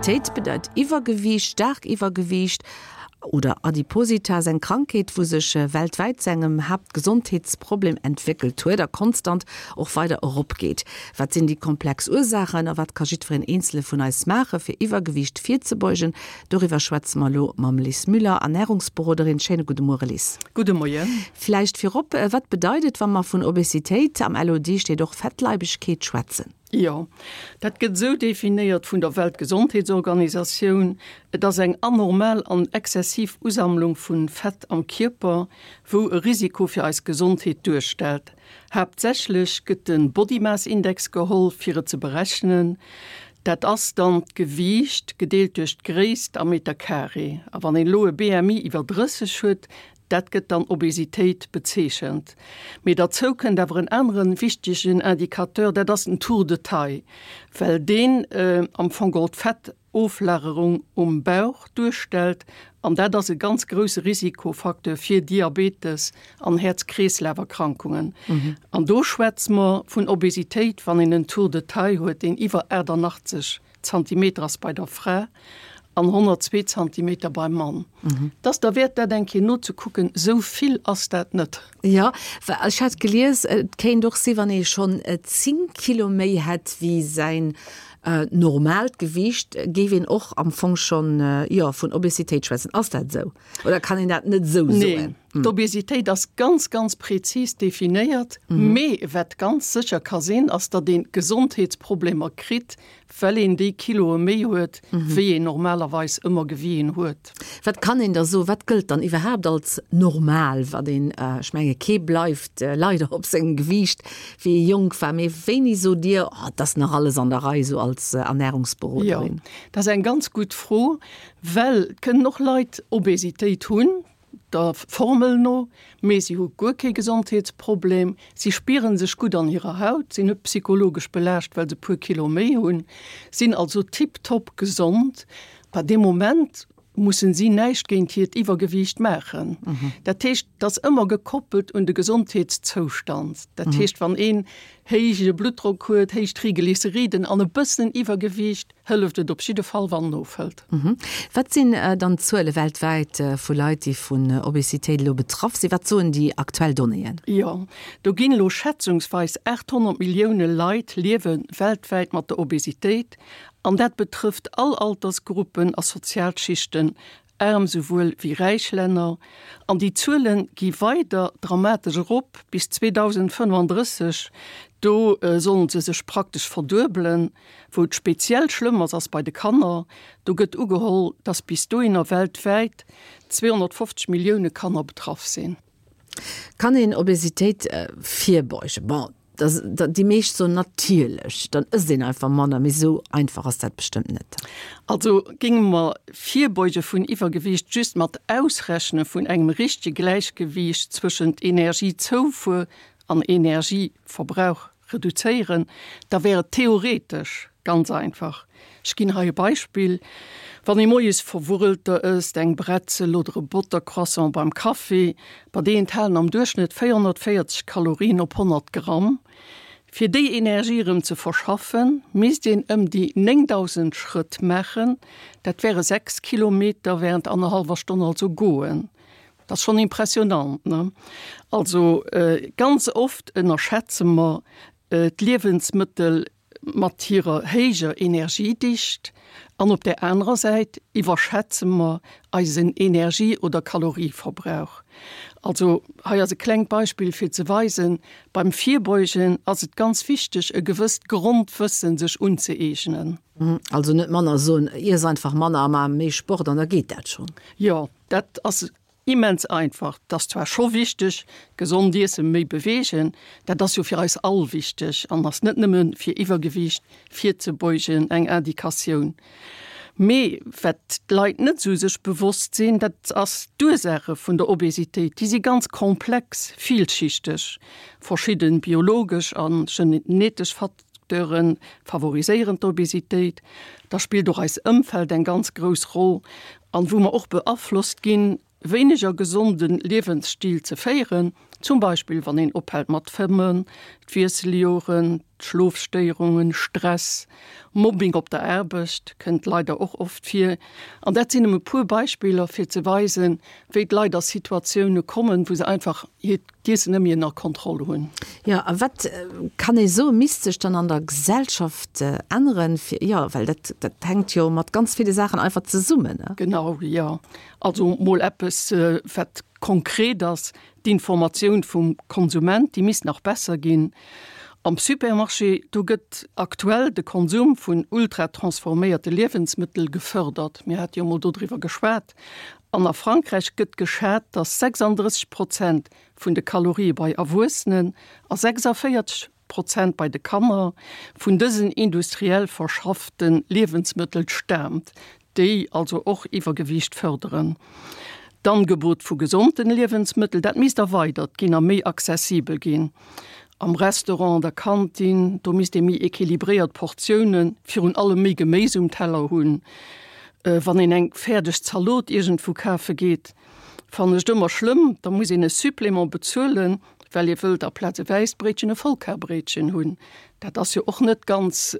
Obesitéit bedeit Iwwergewiicht, staark Iwwergewiicht oder Adipositas, eng Krankheet, wou sech weltwäit zu engem Haaptgesondheetsproblem entwéckelt huet a konstant och weider eropgeet. Wat sinn déi komplex Ursaachen a wat ka jiddwereen eenzele vun eis maache fir Iwwergewiicht virzebeugen? Doriwwer schwätze mer elo mam Lis Müller, Ernärungsberoderin. Schéine gudde Muere Lis. Gudde Moien. Vläicht virop, Wat bedeit et, wa mer vun Obesitéit, am LOD steet och Fettleibegkeet, schwätzen? Jo, dat gëtt esou definéiert vun der Weltgesondheetsorganisatioun, Et ass eng anormal an exzessiv Usammlung vu Fett am Kierper, wou e Risiko fir eis Gesondheet duerstellt. Haaptsächlech gëtt de Body Mass Index geholl, fir et ze berechnen. Dat ass dann d'Gewiicht gedeelt duerch d'Gréisst am Meter Carré. A wann een elo e BMI iwwer 30 huet, dat gëtt dann Obesitéit bezeechent. Mee derzou kënnt awer en anere wichtegen Indicateur, dat ass den Tour de taille, well deen am Fong geholl d'Fett Oflagerung um Bauch duerstellt, an dat ass e ganz grousse Risikofacteur fir Diabetes an Häerz-Kreeslaf-Erkrankungen. An do schwätze mer vun Obesitéit, wann een en Tour de taille huet, deen iwwer 88 Zantimeter ass bei der Fra an 102 Zantimeter beim Mann. Et ass derwäert, dat eng Kéier nozekucken, esou vill ass dat net. Jo, well ech hat gelies, et kéint och si wann ee schonn 10 Kilo méi hätt wéi säin Normaalt Gewiicht, géif een och am Fong schonn, jo, vun Obesitéit schwätzen. Ass dat esou oder kann een dat net esou soen? Neen, d'Obesitéit ass ganz, ganz prezis definéiert. Mee wat ganz sécher ka sinn, ass, datt ee Gesondheetsproblemer kritt, well een déi Kiloe méi huet, wéi een normalerweis ëmmer gewien huet. Wat kann een da soen, wat gëllt dann iwwerhaapt als normal, wat een, ech menge kee bleift leider op sengem Gewiicht wéi ee jonk war, mee wéini sot Dir, oh, et ass nach alles an der Rei, esou als Ernärungsberoderin? Jo, dat ass eng ganz gutt Fro, well et kënnen och Leit Obesitéit hunn, der Formel no, mee si hu guer kee Gesondheetsproblem, si spiere sech gutt an hirer Haut, sinn net psychologesch belaascht, well se e puer Kilo méi hunn, sinn also tiptop gesond. Bei deem Moment mussen si näischt géint hiert Iwwergewiicht maachen. Dat heescht, et ass ëmmer gekoppelt un de Gesondheetszoustand. Dat heescht, wann een héije Bluttdrock huet, héich Triglyceriden an e bëssen Iwwergewiicht, hëlleft et op jidde Fall, wann en ofhëlt. Wat sinn dann d'Zuele weltwäit vu Leit, déi vun Obesitéit elo betraff sinn? Wat soen déi aktuell Donnéeën? Jo, do ginn elo schätzungsweis 800 Millioune Leit liewe weltwäit mat der Obesitéit. An dat betrëfft all Altersgruppen a Sozialschichten, aarm souwuel wéi räich Länner. An déi Zuele gi weider dramatesch erop, bis 2035, do sollen se sech praktesch verduebelen. Wou et speziell schlëmm ass, ass bei de Kanner. Do gëtt ugeholl, dass bis dohinner weltwäit 250 Millioune Kanner betraff sinn. Kann een Obesitéit virbeugen? Bon, déi meescht soen natierlech, dann ësst een einfach manner, mee esou einfach ass dat bestëmmt net. Also géinge mer Virbeuge vun Iwwergewiicht just mat Ausrechne vun engem richtege Gläichgewiicht zwëschent Energiezoufuer an Energieverbrauch reduzéieren, da wär et theoretesch ganz einfach. Ech ginn hei e Beispill, Wann ee moies Verwurrelter ësst, eng Bretzel oder e Bottercroissant beim Kaffi, bei déi enthalen am Duerchschnëtt 440 Kalorien op 100 Gramm. Fir déi Energie erëm ze verschaffen, misst een ëm déi 9.000 Schrëtt maachen, dat wäre 6 Kilometer während annerhallwer Stonn also goen. Dat ass schonn impressionant, ne? Also ganz oft ënnerschätze mer d'Liewensmëttel mat hirer héijer Energiedicht an op där anerer Säit iwwerschätze mer eisen Energie oder Kalorieverbrauch. Also hei ass e klengt Beispill fir ze weisen, beim Virbeugen ass et ganz wichteg e gewësst Grondwëssen sech unzëeegnen. Also net manner soen, iess einfach manner a mar méi Sport an da geet dat schonn. Jo, Dat ass immens einfach. Et ass zwar scho wichteg, gesond iessen, méi beweegen, dat ass jo fir eis all wichteg an ass net nëmme fir Iwwergewiicht virzebeugen eng Indikatioun. Mee wat d'Leit net esou sech bewosst sinn, dat ass d'Ursaache vun der Obesitéit, déi si ganz komplex, villschichteg. Verschidde biologesch a genetesch Facteure favoriséieren d'Obesitéit. Da spillt och eis Ëmfeld eng ganz grouss Roll an wou mer och beaflosst ginn, wéineger gesonde Liewensstil ze féieren, zum Beispill wann een ophält mat fëmmen. D'Wiesseljoren, d'Schlofstéierungen, Stress, Mobbing op der Aarbecht kënnt leider och oft vir. An dat sinn nëmme puer Beispiller, fir ze weisen, wéi d'Leit a Situatioune kommen, wou se einfach hiert d'Iessen net méi ënner Kontroll hunn. Jo, a wat kann ee soen, misst sech dann an der Gesellschaft änneren, fir, jo, well dat, dat hänkt jo mat ganz ville Saachen einfach zesummen, ne? Genau, jo. Also mol eppes, wat konkret ass, D'Informatioun vum Konsument, déi misst nach besser ginn. Am Supermarché, do gëtt aktuell de Konsum vun ultra-transforméierte Liewensmëttel gefërdert. Mir hate jo mol dodriwwer geschwat. An a Frankräich gëtt geschat, datt 36 Prozent vun de Kalorië bei Erwuessenen a 46 Prozent bei de Kanner vun dësen industriell verschaffte Liewensmëttel staamt, déi also och Iwwergewiicht fërderen. D'Angebot vu gesonten Liewensmëttel, dat misst erweidert ginn a méi accessibel ginn. Am Restaurant, an der Kantin, do misst ee méi equilibréiert Portiounen, virun allem méi Geméis um Teller hunn. Wann een eng fäerdeg Zalot iergendwou kafe geet, fannen ech et ëmmer schlëmm, da muss een e Supplément bezuelen, well ee wëllt aplaz e wäisst Bréitchen e Vollkarbréitchen hunn. Dat ass jo och net ganz,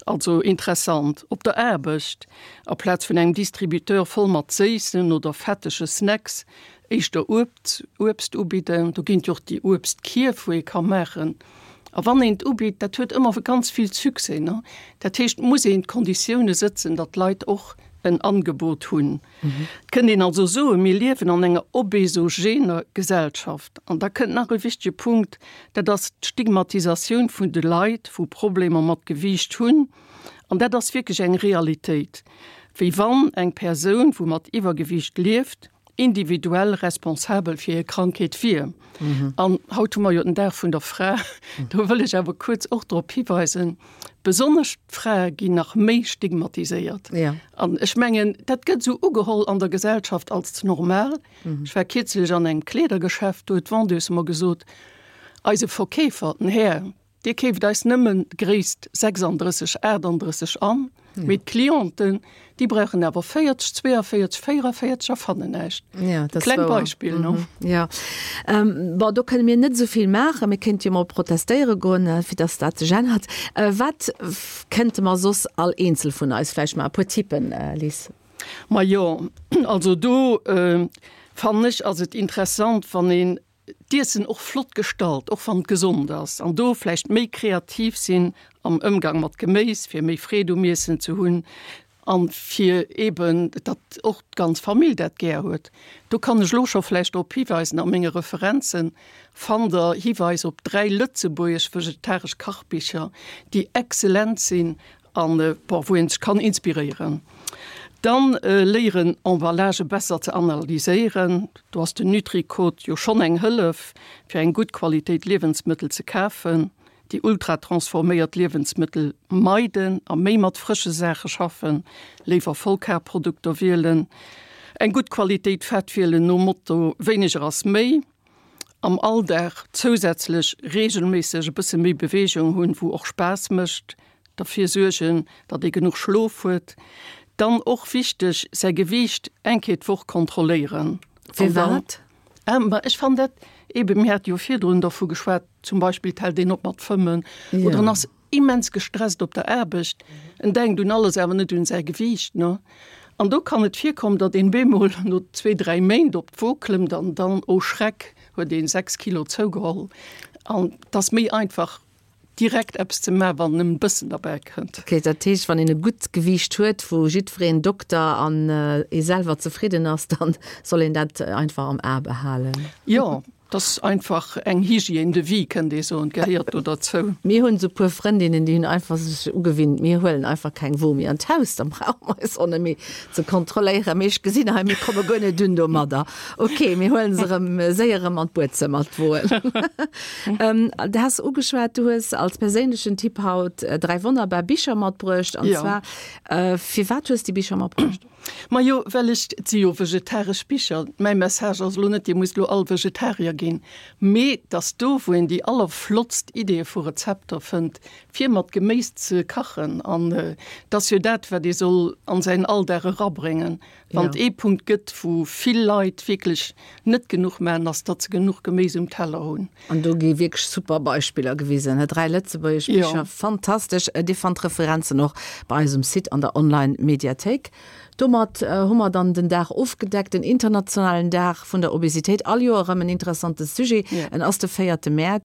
also interessant. Op der Aarbecht, aplaz vun engem Distributeur voll mat séissen oder fettege Snacks, éischter Uebst, Uebst ubidden. Do ginn et jo och déi Uebstkierf, wou ee ka maachen. A wann een et ubitt, dat huet ëmmer ganz vill Succès, ne? Dat heescht, et muss een d'Konditioune sëtzen, datt d'Leit och en Angebot hunn. Et kënnt een also soen, mir liewen an enger obesogener Gesellschaft. An da kënnt nach e wichtege Punkt, dat ass d'Stigmatisatioun vun de Leit, wou Problemer mat Gewiicht hunn. An dat ass wierklech eng Realitéit, wéi wann eng Persoun, wou mat Iwwergewiicht lieft, individuell responsabel fir hir Krankheet wier. An haut hu mer jo den Dag vun der Fra, do wëll ech awer kuerz och drop hiweisen, Besonnesch d'Frae ginn nach méi stigmatiséiert. Ja. An ech mengen, dat gëtt esou ugeholl an der Gesellschaft als normal. Ech war kierzlech an engem Kleedergeschäft, do huet d'Vendeuse mer gesot, eise Verkeefer, den Här, dee keeft eis nëmmen d'Gréisst 36, 38 an, mee d'Clienten, déi brauchen awer 40, 42, 44 a fannen näischt. Ja, dat ass Kleng wouer. Beispill, no? Ja. Bon, do kënne mir net esou vill maachen. Mir kéinte jo mol protestéiere goen, fir dass dat sech ännert. Wat kënnte mer soss all eenzel vun eis vläicht maachen? E puer Tippen, Liz? Majo, also do fannen ech, ass et interessant, wann een d'Iessen och flott gestalt, och wann et gesond ass, an do vläicht méi kreativ sinn am Ëmgang mat Geméis, fir méi Freed um Iessen ze hunn an fir eeben, datt och d'ganz Famill dat gär huet. Do kann ech elo scho vläicht drop hiweisen, a menge Referenze fannt Der Hiweis op 3 lëtzebuergesch vegetaresch Kachbicher, déi excellent sinn An bon, wou een sech kann inspiréieren. Dann léieren Emballagë besser ze analyséieren. Do ass den Nutri-Code jo schonn eng Hëllef, fir eng gutt Qualitéit Liewensmëttel ze kafen. Déi ultratransforméiert Liewensmëttel meiden a méi mat frësche Saache schaffen, léiwer Vollkarprodukter wielen. Eng gutt Qualitéit Fett wielen, nom Motto wéineger ass méi. Am Alldag zousätzlech reegelméisseg e bësse méi Beweegung hunn, wou och Spaass mécht, derfir suergen, datt ee genuch Schlof huet. Dann och wichteg, säi Gewiicht eng Kéier d'Woch kontrolléieren. Firwat? Ma ech fannen dat eeben, mir hate jo virdrun dervu geschwat, zum Beispill et hält een op mat fëmmen oder en ass immens gestresst op der Aarbecht, en denkt un alles, awer net un säi Gewiicht, ne? An do kann et virkommen, datt een bemol no zwee, dräi Méint op d'Wo klëmmt an dann, oh Schreck, huet een 6 Kilo zougeholl. An et ass méi einfach, direkt eppes ze maachen, wann nëmmen e bëssen derbäi kënnt. Ok, dat heescht, wann een e gutt Gewiicht huet, wou jiddwereen, Dokter an ee selwer, zefridden ass, dann soll een dat einfach am A behalen. Jo, 't ass einfach eng Hygiène de vie, kënnt ee soen, gehéiert do derzou. Mir hunn esou puer Frëndinnen, déi hunn einfach sech ugewinnt, mir huelen einfach keng Wo méi an d'Haus, da brauche mer eis och net méi ze kontrolléieren. Mee ech gesinn hei, mir komme guer net un domadder. Ok, mir huelen se erëm séier erëm an d'Buedzëmmer, d'Woen. Du has ugeschwat, du hues als perséinlechen Tipp haut 3 wonnerbar Bicher matbruecht. An zwar, firwat hues déi Bicher matbruecht? Majo, well ech, et si jo vegetaresch Bicher. Mäi Message ass elo net, Dir musst elo all Vegetarier ginn. ginn, mee et ass do, wou een déi allerflottst Ideeë vu Rezepter fënnt, fir mat Geméis ze kachen. An et ass jo dat, wat ee soll an säin Alldag erabréngen. Wann et ee Punkt gëtt, wou vill Leit wierklech net genuch maachen, ass, datt se genuch Geméis um Teller hunn. An do gi wierklech super Beispiller gewisen, he, 3 lëtzebuergesch Bicher, fantastesch. Dir fannt d'Referenzen och bei eis um Site an der Online-Mediathéik. Domat hu mer dann den Dag ofgedeckt, den internationalen Dag vun der Obesitéit. All Joer erëm en interessante Sujet. En ass de véierte Mäerz.